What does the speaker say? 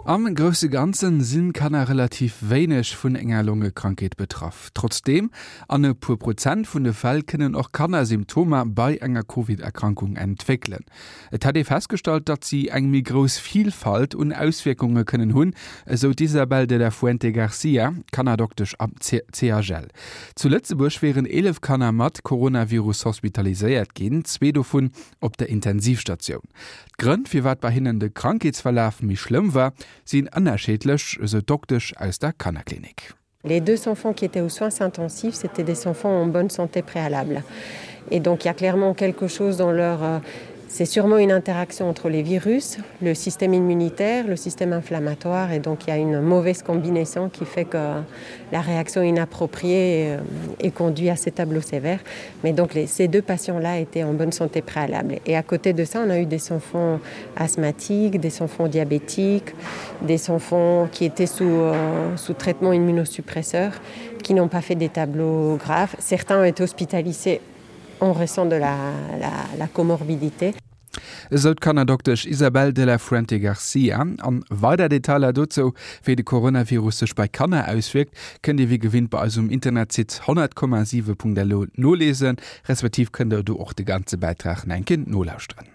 Am grousse Ganzen sinn Kanner relativ wéineg vun enger Longekrankheet betraff. Trotzdeem, an e puer Prozent vun de Fäll kënnen och Kanner Symptomer bei enger Covid-Erkrankung entwéckelen. Et hätt ee festgestallt, datt si eng méi grouss Vilfalt un Auswierkunge kënnen hunn, esou d'Isabel de la Fuente Garcia, Kannerdoktesch am CHL. Zu Lëtzebuerg wieren 11 Kanner mat Coronavirus hospitaliséiert ginn, zwee dovun op der Intensivstatioun. D'Grënn, firwat bei hinnen de Krankheetsverlaf méi schlëmm war, sinn ënnerscheedlech, esou d'Doktesch aus der Kannerklinik. Les deux enfants qui étaient aux soins intensifs, c'était des enfants en bonne santé préalable. Et donc il y a clairement quelque chose dans leur euh, c'est sûrement une interaction entre les virus, le système immunitaire, le système inflammatoire et donc il y a une mauvaise combinaison qui fait que la réaction inappropriée euh, est conduit à ces tableaux sévères. Mais donc les, ces deux patients-là étaient en bonne santé préalable. Et à côté de ça, on a eu des enfants asthmatiques, des enfants diabétiques, des enfants qui étaient sous, euh, sous traitement immunosuppresseur, qui n'ont pas fait des tableaux graves. Certains ont été hospitalisés en raison de la, la, la comorbidité. Esou d'Kannerdoktesch Isabel de la Fuente Garcia. An weider Detailer dozou, wéi de Coronavirus sech bei Kanner auswierkt, kënnt Dir wéi gewinnt bei eis um Internetsite 100,7.lu nolesen, respektiv kënnt der do och de ganze Bäitrag nach eng Kéier nolauschteren.